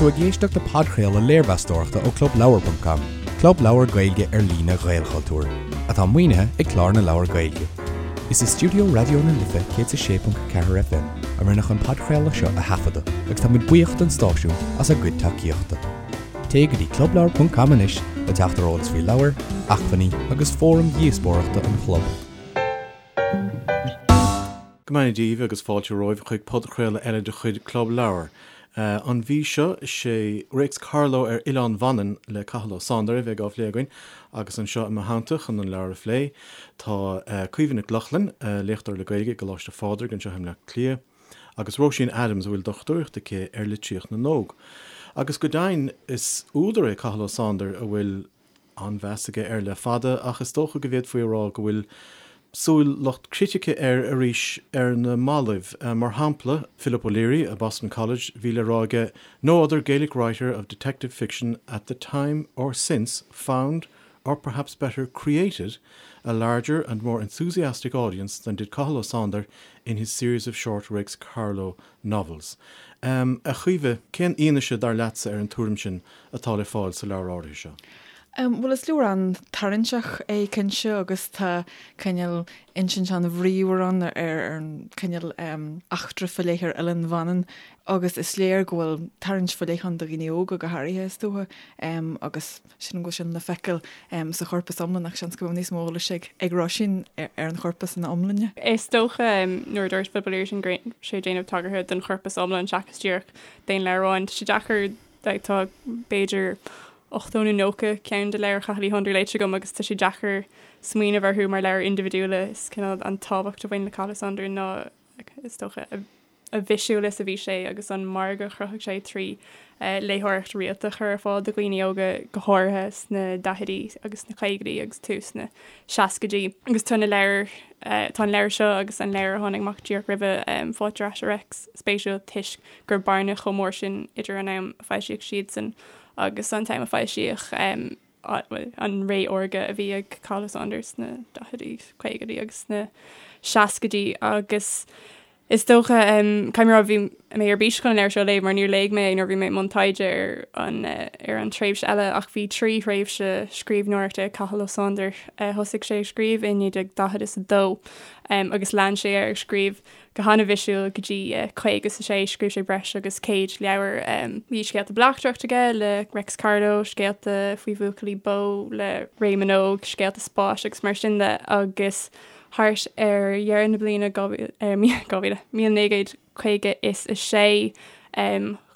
tú ag éisteacht le podchraoladh léirmheastóireachta ó ClubLeabhar.com, club leabhar Gaeilge ar líne Ghaelchultúir, atá maoinithe ag Clár na Leabhar Gaeilge. Is i stiúideo Raidió na Life 106.4 FM a rinneadh an podchraoladh seo a thaifeadadh agus tá muid buíoch don stáisiún as a gcuid tacaíochta. Téigh go dtí clubleabhar.com anois le teacht ar eolas faoi leabhair, acmhainní agus fóraim dhíospóireachta an chlub. Go mbeannaí Dia daoibh agus fáilte romhaibh chuig podchraoladh eile de chuid Club Leabhar. An mhí seo, is é Réics Carló ar Oileán Mhanann le Cathal Ó Sándair a bheidh á phlé againn agus anseo i mo theannta chun an leabhar a phlé tá Caoimhe Nic Lochlainn, léachtóir le Gaeilge i gColáiste Phádraig anseo i mBleá Cliath, agus Róisín Adams a bhfuil dochtúireacht aici ar litríocht na n-óg. Agus go deimhin, is údar é Cathal Ó Sándair a bhfuil an-mheas aige air le fada, ach is dócha go bhféadfaí a rá go bhfuil súil lucht critice air arís ar na mallaibh. Mar shampla, Philip O'Leary i Boston College, bhí le rá aige, No other Gaelic writer of detective fiction at the time or since found, or perhaps better, created, a larger and more enthusiastic audience than did Cathal Ó Sándair in his series of short Réics Carló novels. A Chaoimhe, cén fhianaise, dar leatsa, ar an tuairim sin atá le fáil sa leabhar áirithe seo? Bhuel, is leabhar an-tarraingteach é cinnte agus tá cineál insint an-bhríomhar ann ar an cineál eachtra faoi leith ar Oileán Mhanann agus is léir go bhfuil tarraingt faoi leith ann do dhaoine óga go háirithe is dócha agus Sílim go bhfuil sin le feiceáil sa chorpas iomlán ach seans go mbeadh níos mó eolais ag Róisín ar an chorpas ina iomláine. Is dócha nuair a dúirt Philip O'Leary sin go raibh sé ag déanamh tagartha don chorpas iomlán seachas díreach d'aon leabhar amháin. Tá sé deacair, tá b'fhéidir 80 nó 90 ceann de leabhair Chathail Uí Shándair léite agam agus tá sé deacair smaoineamh orthu mar leabhair indibhidiúla. Is cineál an tábhacht a bhain le Cathal Ó Sándair ná is dócha a a bhisiúil is a bhí sé agus an margadh a chruthaigh sé trí léitheoireacht rialta a chur ar fáil do dhaoine óga, go háirithe sna daichidí agus sna caogaidí agus tús na seascaidí. Agus tá na leabhair, tá an leabhar seo agus an leabhar a tháinig amach díreach roimhe, Fáilte ar Ais a Reics, spéisiúil toisc go raibh bearna chomh mór sin idir an am a foilsíodh siadsan agus an t-am a foilsíodh an ré órga a bhí ag Cathal Ó Sándair sna daichidí, caogaidí agus sna seascaidí agus is dócha, caithfidh mé a rá, bhí mé ar bís chun an leabhar seo a léamh mar níor léigh mé é nuair a bhí mé i mbun taighde ar an ar an tréimhse eile ach bhí 3 thréimhse scríbhneoireachta ag Cathal Ó Sándair. Thosaigh sé ag scríobh i 1942 agus lean sé air ag scríobh go han-bhisiúil go dtí 56. Scríobh sé breis agus 100 leabhar. Bhí scéalta bleachtaireachta aige le Reics Carló, scéalta faoi bhuachaillí bó le Réamonn Óg, scéalta spáis agus mar sin de agus thart ar dheireadh na bliana 2000, 1956,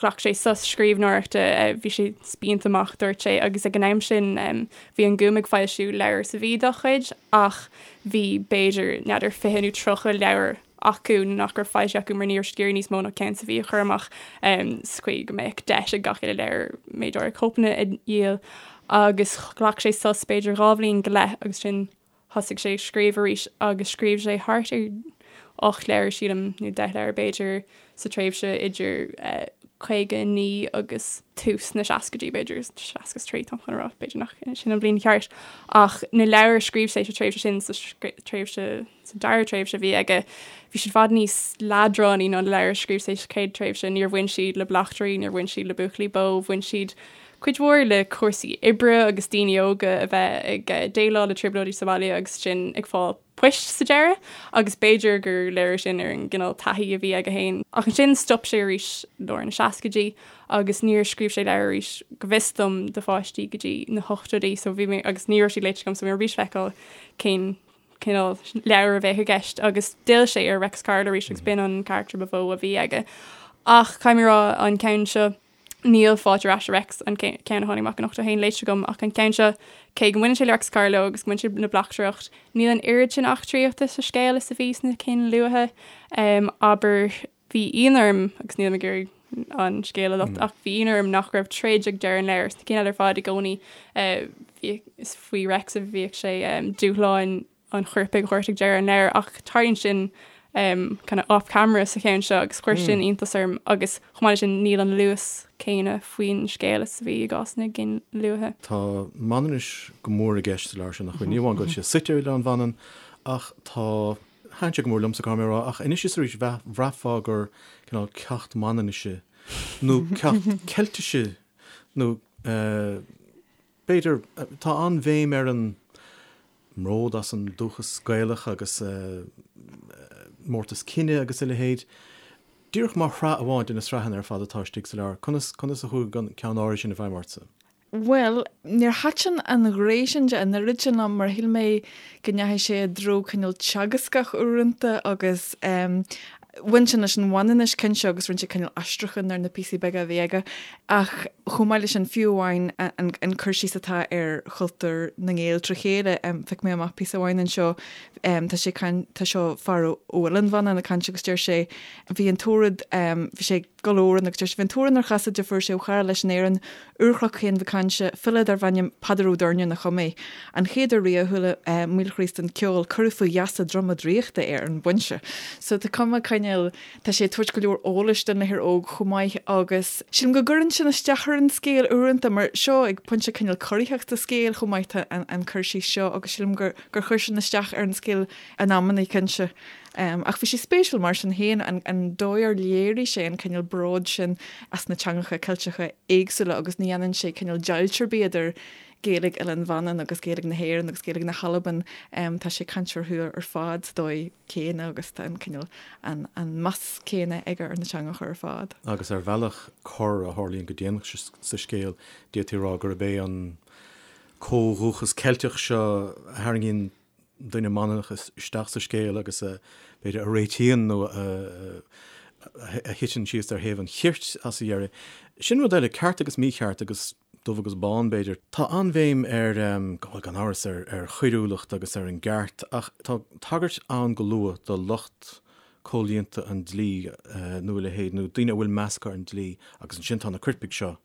ghlac sé sos scríbhneoireachta, bhí sé spíonta amach, dúirt sé, agus ag an am sin bhí an Gúm ag foilsiú leabhar sa mhí dá chuid ach bhí b'fhéidir, n'fheadar, 20 nó 30 leabhar acu nach raibh foilsithe acu mar ní raibh siad ag iarraidh níos mó ná ceann sa mhí a chur amach sa chaoi go mbeadh deis ag gach uile leabhar méid áirithe cóipeanna a dhíol agus ghlac sé sos b'fhéidir dhá bhliain go leith agus ansin Thosaigh sé ag scríobh arís agus scríobh sé thart ar 8 leabhar, sílim, nó 10 leabhar b'fhéidir, sa tréimhse idir 59 agus tús na seascaidí, b'fhéidir, 63 táim chun a rá, b'fhéidir nach sin an bhliain cheart. Ach na leabhair a scríobh sé sa tréimhse sin, sa tréimhse, sa dara tréimhse a bhí aige, bhí siad i bhfad níos leadránaí ná na leabhair a scríobh sé sa chéad tréimhse. Níor bhain siad le bleachtairí, níor bhain siad le buachaillí bó, bhain siad cuid mhór le cúrsaí oibre agus daoine óga a bheith ag déileáil le trioblóidí sa bhaile agus ansin ag fáil poist sa deireadh agus b'fhéidir gur léiriú sin ar an gcineál taithí a bhí aige féin. Ach ansin stop sé arís i lár na seascaidí agus níor scríobh sé leabhar arís go bhfios dom do pháistí go dtí na hochtóidí so bhí mé agus ní raibh siad léite agam so bhí mé ar bís feiceáil cén cineál leabhar a bheadh i gceist agus d'fhill sé ar Reics Carló arís agus b'in an carachtar ba mhó a bhí aige. Ach caithfidh mé a rá an ceann seo Níl Fáilte ar Ais a Reics, an ceann a tháinig amach in 81, léite agam ach an ceann seo, cé go mbaineann sé le Reics Carló agus go mbaineann sé le bleachtaireacht, níl an oiread sin eachtraíochta sa scéal is a bhí sna cinn luatha. Abair, bhí ionadh orm, agus nílim ag iarraidh an scéal a lochtú, ach bhí ionadh orm nach raibh troid ag deireadh an leabhair. Sna cinn eile ar fad i gcónaí, is faoi Reics a bhíodh sé, dúshláin an choirpigh a thabhairt ag deireadh an leabhair ach tarlaíonn sin kind of off camera sa cheann seo agus chuir sin iontas orm agus chomh maith leis sin níl an luas céanna faoin scéal is a bhí i gcás na gcinn luaithe. Tá Manainnis go mór i gceist sa leabhar seo, nach bhfuil? Ní amháin go bhfuil sé suite ar Oileán Mhanann ach tá, thaitin sé go mór liomsa, caithfidh mé a rá, ach anois is arís bhraithfeá gur cineál ceacht Manainnise. nó ceacht Ceiltise nó b'fhéidir, tá an-bhéim ar an mbród as an dúchas Gaelach agus mórtas cine agus a leithéid. Díreach mar shraith amháin de na sraitheanna ar fad atá istigh sa leabhar, conas, conas a chuaigh an ceann áirithe sin i bhfeidhm ortsa? Bhuel, níor thaitin an ghné sin de an oiread sin liom mar shíl mé go ndeachaigh sé i dtreo cineál teagascach uaireanta agus bhain sin leis an Mhanainnis cinnte agus rinne sé cineál aistriúchán ar na píosaí beaga a bhí aige ach chomh maith leis sin fiú amháin an cur síos atá ar chultúr na nGael trí chéile, phioc mé amach píosa amháin anseo, tá sé tá seo fear ó Oileán Mhanann ag caint agus deir sé bhí an tórad, bhí sé ag gabháil amhráin agus deir sé bhí an t-amhrán ar chasaid a fuair sé ó chara leis in Éirinn, Úrchnoc Chéin Mhic Cáinte, file darbh ainm Peadar Ó Doirnín a chum é. An chéad uair riamh a chuala Maolchríost an ceol, cuireadh faoi gheasa droma draíochta é ar an bpointe. So tá cuma cineál, tá sé ag tabhairt go leor eolais don léitheoir óg chomh maith agus sílim go gcuireann sin isteach ar an scéal uaireanta mar seo ag pointe cineál corraitheach sa scéal chomh maith tá an cur síos seo agus sílim gur gur chuir sin isteach ar an scéal in amannaí cinnte. Ach bhí sé spéisiúil mar sin féin an dóigh ar léirigh sé an cineál bróid sin as na teangacha Ceilteacha éagsúla agus ní dhéanann sé cineál deighilt ar bith idir Gaeilge Oileán Mhanann agus Gaeilge na hÉireann agus Gaeilge na hAlban. Tá sé ag caint orthu ar fad sa dóigh céanna agus tá an cineál an meas céanna aige ar na teangacha ar fad. Agus ar bhealach cor a tharlaíonn go déanach sa scéal, d'fhéadfaí a rá gurb é an comhdhúchas Ceilteach seo a tharraingíonn duine Manannach isteach sa scéal agus a, b'fhéidir, a réitíonn nó a thiteann síos ar thaobh an chirt as a dheireadh. Sin rud eile, ceart agus mícheart agus dubh agus bán, b'fhéidir. Tá an-bhéim ar, bhuel, gan amhras, ar choiriúlacht agus ar an gceart ach tá tagairt ann go luath do lucht comhlíonta an dlí nó a leithéid, nó daoine a bhfuil meas acu ar an dlí agus ansin tá na coirpigh seo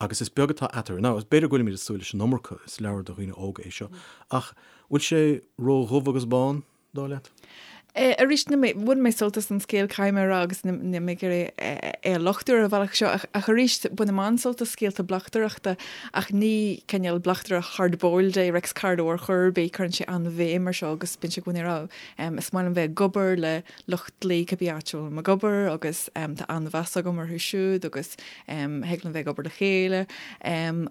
agus is beag atá eatarthu. Now, b'fhéidir go bhfuilimid ag súil leis an iomarca, is leabhar do dhaoine óga é seo, ach bhfuil sé ró-dhubh agus bán, dar leat? Arís, níl mé, bhain mé sult as an scéal, caithfidh mé a rá, agus níl mé ag iarraidh é a lochtú ar an bhealach seo, ach arís, bainim an-sult as scéalta bleachtaireachta, ach ní cineál bleachtaire hard-boiled é Reics Carló ar chor ar bith, cuireann sé an-bhéim ar seo agus bíonn sé i gcónaí ag rá, is maith liom bheith ag obair le lucht dlí cibé áit a bhfuilim ag obair agus tá an-mheas agam orthu siúd agus thig linn bheith ag obair le chéile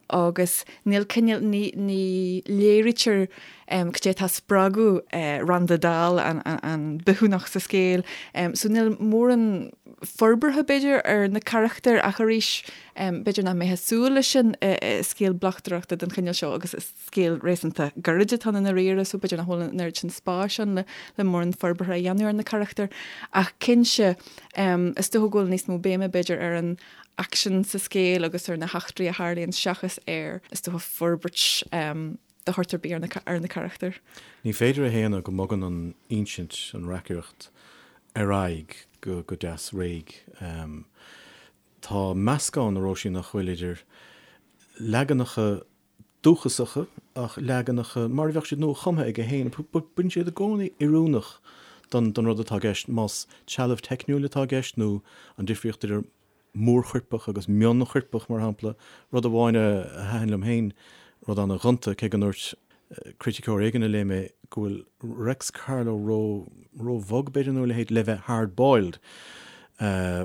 agus níl cineál, ní, ní léirítear cad é atá ag spreagadh Randa Dal, an bithiúnach sa scéal. So níl mórán forbartha b'fhéidir ar na carachtair ach arís b'fhéidir nach mbeifeá ag súil leis sin i scéal bleachtaireachta den chineál seo agus is scéal réasúnta gairid atá ann i ndáiríre so b'fhéidir nach bhfuil an oiread sin spáis ann le mórán forbartha a dhéanamh ar na carachtair. Ach cinnte, is dócha go bhfuil níos mó béime b'fhéidir ar an aicsean sa scéal agus ar na heachtraí a tharlaíonn seachas ar, is dócha, forbairt de shórt ar bith ar na carachtair. Ní féidir a shéanadh go mbogann an insint, an reacaireacht, ar aghaidh go deas réidh. Tá meascán, a Róisín, nach bhfuil, idir leaganacha dúchasacha ach leaganacha mar a bheadh siad nua-chumtha aige féin. Bíonn siad i gcónaí oiriúnach don rud atá i gceist, más trealamh teicniúil atá i gceist nó an difríocht idir mórchoirpeach agus mionchoirpeach, mar shampla. Rud amháin a thaitin liom féin, rud an-ghonta, cé go ndúirt criticeoir éigin a léigh mé go bhfuil Reics Carló ró, ró-bhog, b'fhéidir, nó a leithéid, le bheith hard-boiled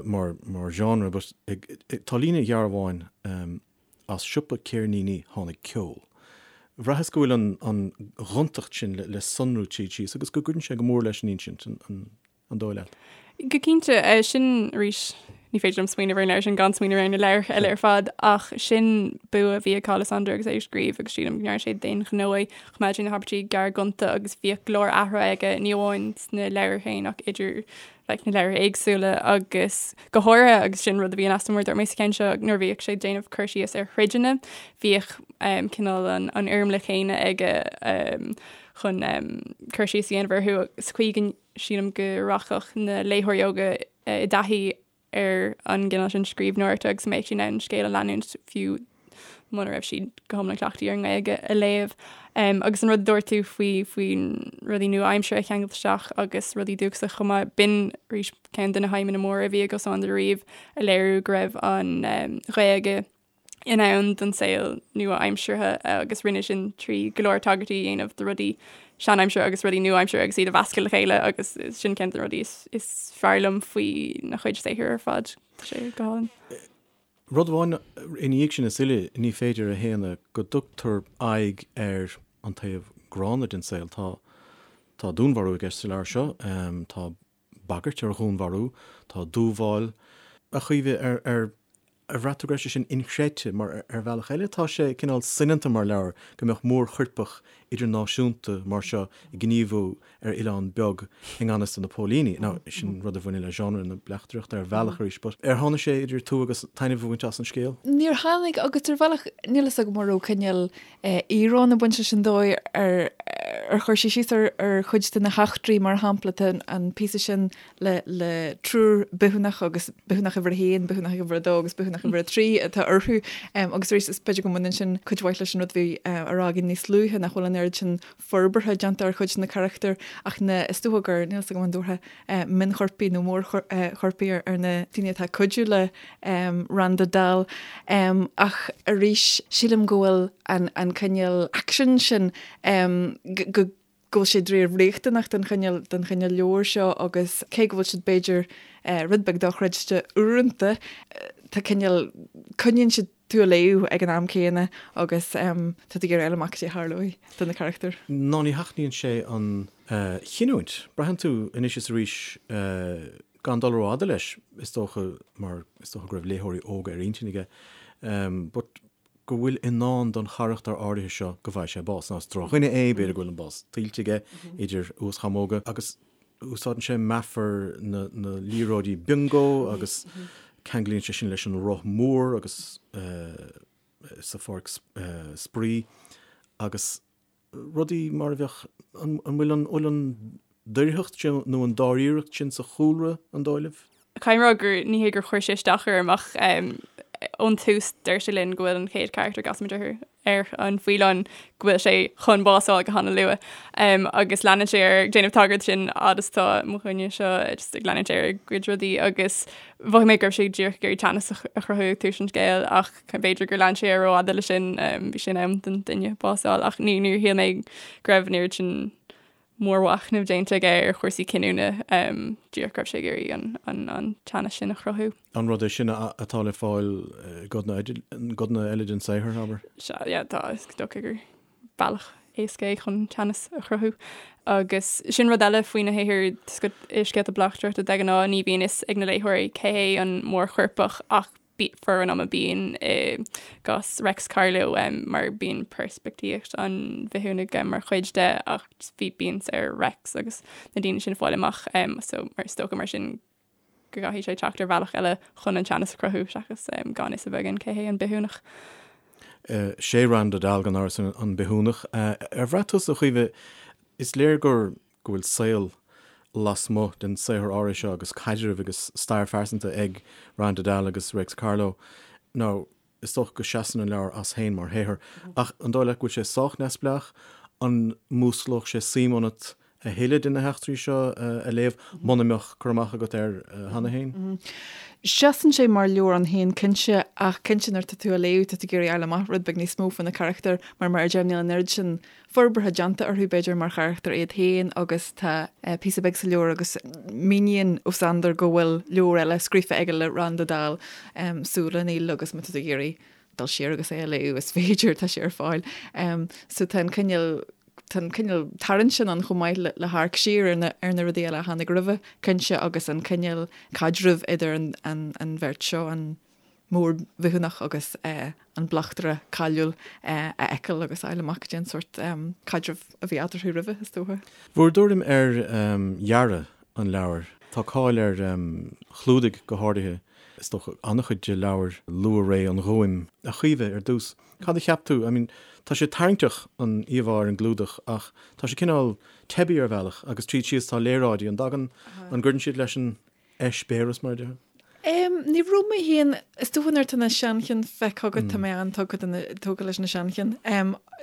mar, mar genre, but tá líne ghearr amháin, As siopa ceirníní tháinig ceol. Bhraitheas go bhfuil an ghontacht sin le sonrú tríd síos agus go gcuireann sé go mór leis an insint, an dóigh leat? Go cinnte, sin arís, ní féidir liom smaoineamh ar an leabhar sin gan smaoineamh ar na leabhair eile ar fad, ach sin bua a bhí ag Cathal Ó Sándair agus é ag scríobh agus sílim go ndearna sé d'aon ghnó é, choimeád sé na habairtí gearr gonta agus bhíodh go leor athruithe aige, ní amháin sna leabhair féin ach idir like, na leabhair éagsúla agus go háirithe agus sin rud a bhí in easnamh mar a dúirt mé sa cheann seo nuair a bhíodh sé ag déanamh cur síos ar throideanna bhíodh um, cineál an, an fhoirmle chéanna aige um, chun um, cur síos a dhéanamh orthu sa chaoi go sílim go rachadh na léitheoirí óga eh, i dtaithí ar an gcineál sin scríbhneoireachta agus go mbeadh siad in ann an scéal a leanúint fiú muna raibh siad go hiomlán cleachtaithe ar an nGaeilge a léamh. Um, agus an rud a dúirt tú faoi faoi rudaí nua-aimseartha a cheangailt isteach agus rudaí dúchasacha chomh maith, b'in arís ceann de na haidhmeanna móra a bhí ag Ó Sándair riamh a léiriú go raibh an um, Ghaeilge in ann don saol nua-aimseartha agus rinne sin trí go leor tagairtí a dhéanamh do rudaí seanaimseartha agus rudaí nua-aimseartha agus iad a mheascadh le chéile agus sin ceann de na rudaí is, is fearr liom faoina chuid saothair ar fad. Tá sé go hálainn. Rud amháin ina dhiaidh sin is uile, ní féidir a shéanadh go dtugtar aghaidh ar an taobh gránna den saol. Tá tá dúnmharú i gceist sa leabhar seo, tá bagairt ar dhúnmharú, tá dúmhál. A Chaoimhe, ar ar ar bhraith tú go raibh sé sin inchreidte? Mar ar bhealach eile tá sé cineál soineanta mar leabhar go mbeadh mórchoirpeach idirnáisiúnta mar seo ag gníomhú ar oileán beag i ngan fhios do na póilíní. Now, sin rud a bhaineann le genre na bleachtaireachta ar bhealach arís, but ar tháinig sé idir tú agus taitneamh a bhaint as an scéal? Níor tháinig, agus ar bhealach níl fhios agam an raibh cineál íoróin ag baint leis an dóigh ar ar chuir sé síos ar ar chuid de na heachtraí, mar shampla, tá an píosa sin le le triúr bithiúnach agus bithiúnach uimhir a haon, bithiúnach uimhir a dó agus bithiúnach uimhir a trí atá orthu. Agus arís is b'fhéidir go mbaineann sin cuid mhaith leis an rud a bhí á rá againn níos luaithe nach bhfuil an oiread sin forbartha déanta ar chuid de na carachtair ach na, is dócha gur, níl 'fhios agam an dtabharfá mionchoirpigh nó mórchoirpigh ar na daoine atá ag cuidiú le Randa Dal. Ach arís, sílim go bhfuil an cineál aicsin sin, go go bhfuil sé dáiríre riachtanach don chineál don chineál leabhair seo agus cé go bhfuil siad b'fhéidir rud beag dochreidte uaireanta, tá cineál, coinníonn siad tú ag léamh ag an am céanna agus tá tú ag iarraidh a fháil amach cad é a tharlóidh do na carachtair. Ná ní sheachnaíonn sé an chinniúint. Braitheann tú anois is arís, gan dul rófhada leis, is dócha, mar is dócha go raibh léitheoirí óga ar intinn aige, but go bhfuil i ndán don charachtar áirithe seo go bhfaighidh sé bás. Now is drochdhuine é, b'fhéidir go bhfuil an bás tuillte aige, idir uaschamóga, agus Úsáideann sé meafar na liathróidí biongó agus ceanglaíonn sé sin leis an roth mór agus sa pháirc spraoi agus rudaí mar a bheadh, an bhfuil an bhfuil an doircheacht sin nó an dáiríreacht sin sa chúlra, an dóigh libh? Caithfidh mé a rá gur ní hé gur chuir sé isteach orm ach ón tús deir sé linn go bhfuil an chéad charachtar a gcasaimid orthu ar an faoileán go bhfuil sé chun bás a fháil go han-luath agus leanann sé air ag déanamh tagairt sin fhad is atá mo dhuine seo just ag leanúint air ag goid rudaí agus mhothaigh mé go raibh sé díreach ag iarraidh teannas a chruthú ag tús an scéil ach b'fhéidir gur lean sé air rófhada leis sin bhí sé in am don duine bás a fháil ach ní níor shíl mé go raibh an oiread sin mórmhachnamh déanta aige ar chúrsaí cinniúna, díreach go raibh sé ag iarraidh an teannas sin a chruthú. An rud é sin atá le fáil i gcodanna eile den saothar, abair? Sea, yeah, tá, is dócha gur bealach éasca é chun teannas a chruthú. Agus sin rud eile faoina shaothar i scéalta bleachtaireachta de ghnáth, ní bhíonn fhios ag na léitheoirí cé hé an mórchoirpeach ach formhór an ama bíonn i gcás Reics Carló mar bíonn peirspictíocht an bhithiúnaigh mar chuid de ach bhí bíonn ar Reics agus na daoine sin fáil amach so mar is dócha mar sin go gcaithfidh sé teacht ar bhealach eile chun an teannas a chruthú seachas gan fhios a bheith againn cé hé an bithiúnach. Sé Randa Dal gan amhras an bithiúnach. Ar bhraith tusa, a Chaoimhe, is léir gur go bhfuil saol lasmuigh den saothar áirithe seo agus caidreamh agus stair phearsanta ag Randa Dal agus Réics Carló. Now, is dócha go seasann an leabhar as féin mar shaothar, ach an dóigh leat go bhfuil sé sách neamhspleách? An músclódh sé suim ionat a thuilleadh de na heachtraí seo a léamh muna mbeadh cur amach agat air cheana féin? Seasann sé mar leabhar ann féin cinnte, ach cinnte nuair atá tú á léamh tá tú ag iarraidh fháil amach rud beag níos mó faoi na carachtair mar mar a deirim níl an oiread sin forbartha déanta orthu, b'fhéidir, mar charachtair iad féin agus tá píosa beag sa leabhar agus míníonn Ó Sándair go bhfuil leabhar eile scríofa aige le Randa Dal, Súile an Aoil agus má tá tú ag iarraidh dul siar agus é a léamh is féidir, tá sé ar fáil. So tá an cineál tá an cineál tarraingt sin ann chomh maith le le hamharc siar ar na ar na rudaí eile a tháinig roimhe, cinnte, agus an cineál caidrimh idir an an an bheirt seo, an mórbhithiúnach agus an bleachtaire cáiliúil a fheiceáil agus a fháil amach cad é an sórt caidrimh a bhí eatarthu roimhe, is dócha. Bhur dtuairim ar dhearadh an leabhair. Tá cáil ar chlúdaigh go háirithe, is dócha, an-chuid de leabhair luath-ré an Ghúim. A Chaoimhe, ar dtús, cad a cheap tú? I mean, tá sé tarraingteach an íomhá ar an gclúdach ach tá sé cineál teibí ar bhealach agus tríd síos tá léaráidí. An dtagann, an gcuireann siad leis an eispéireas, mar a déarfá? Ní raibh mé féin, is dócha nuair atá na seanchinn feicthe agat, tá mé an-tógtha leis na seanchinn.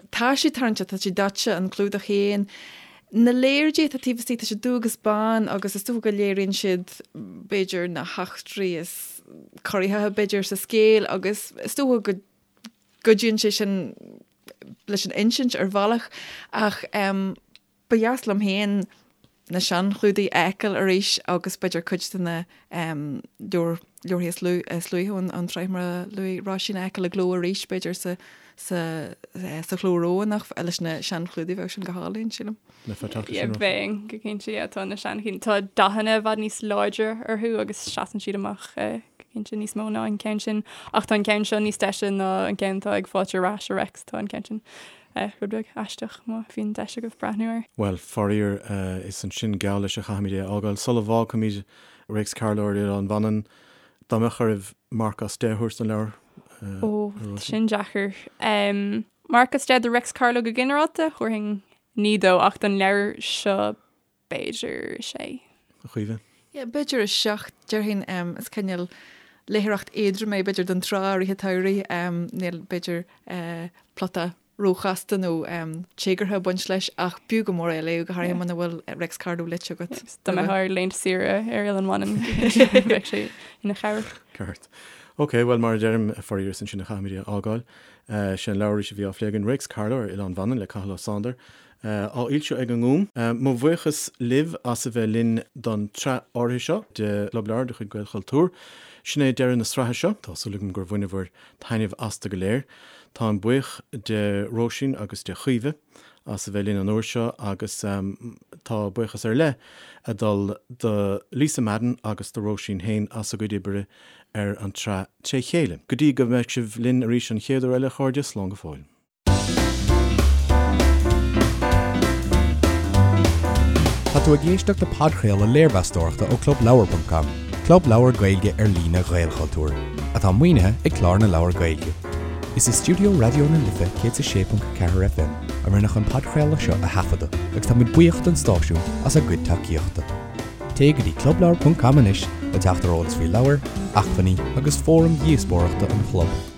Tá siad tarraingteach, tá siad daite, an clúdach féin. Na léaráidí atá taobh istigh, tá siad dubh agus bán agus is dócha go léiríonn siad b'fhéidir na heachtraí is corraitheacha b'fhéidir sa scéal agus is dócha go gcuidíonn sé sin leis an insint ar bhealach ach ba dheas liom féin. na seanchlúdaigh a fheiceáil arís agus b'fhéidir cuid de na leabhair leabharthaí is is luaithe ón ón tsraith mar a luaigh Róisín a fheiceáil i gcló arís b'fhéidir sa sa sa chló Rómhánach leis na seanchlúdaigh bheadh sin go hálainn sílim. Yeah, bheinn go cinnte yeah, tá na seanchinn tá dathanna i bhfad níos láidre orthu agus seasann siad amach eh, go cinnte níos mó ná an ceann sin ach tá an ceann seo níos deise ná an ceann atá ag Fáilte ar ais a Réics tá an ceann sin eh, rud beag aisteach má bhíonn deis agaibh breathnú air. Bhuel, faraor, eh, is ansin geall leis a chaithfimid é a fhágáil. Sula bhfágfaimid Réics Carló ar Oileán Mhanann, dá mbeadh oraibh marc as 10 a thabhairt don leabhar? Eh, Ó, sin deacair. Um, marc as 10 do Réics Carló go ginearálta, thabharfainn 9 dó ach don leabhar seo b'fhéidir sé. A Chaoimhe? Yeah, b'fhéidir 7, déarfainn. Is cineál léitheoireacht éadrom é b'fhéidir don tráth i rith an tsamhraidh. Níl b'fhéidir plota róchasta nó téagartha ag baint leis ach b'fhiú go mór é a léamh, go háirithe muna bhfuil Réics Carló léite agat. Dá mbeifeá ar laethanta saoire ar Oileán Mhanann bheadh sé ina chabhair. Ceart. Ok, bhuel mar a deirim, faraor is ansin a chaithfimid é a fhágáil. Sé an leabhar arís a bhí á phlé againn, Réics Carló ar Oileán Mhanann le Cathal Ó Sándair, á fhoilsiú ag an nGúm. Mo bhuíochas libh as a bheith linn don tsraith áirithe seo de Chlub Leabhar de chuid Gaelchultúr. Sin é deireadh na sraithe seo. Tá súil agam gur bhaineabhair taitneamh astu go léir. Táim buíoch de Róisín agus de Chaoimhe as a bheith linn an uair seo agus tá buíochas ar leith ag dul do Lisa Madden agus do Róisín féin as a gcuid oibre ar an tsraith tré chéile. Go dtí go mbeidh sibh linn arís an chéad uair eile, a chairde, slán go fóill. Tá tú ag éisteacht le podchraoladh léirmheastóireachta ó ClubLeabhar.com, club leabhar Gaeilge ar líne Ghaelchultúir, atá maoinithe ag Clár na Leabhar Gaeilge. Is i stiúideo Raidió na Life 106.4 FM a rinneadh an podchraoladh seo a thaifeadadh agus táimid buíoch don stáisiún as a gcuid tacaíochta. Téigh go dtí clubleabhar.com anois le teacht ar eolas faoi leabhair, acmhainní agus fóraim dhíospóireachta an chlub.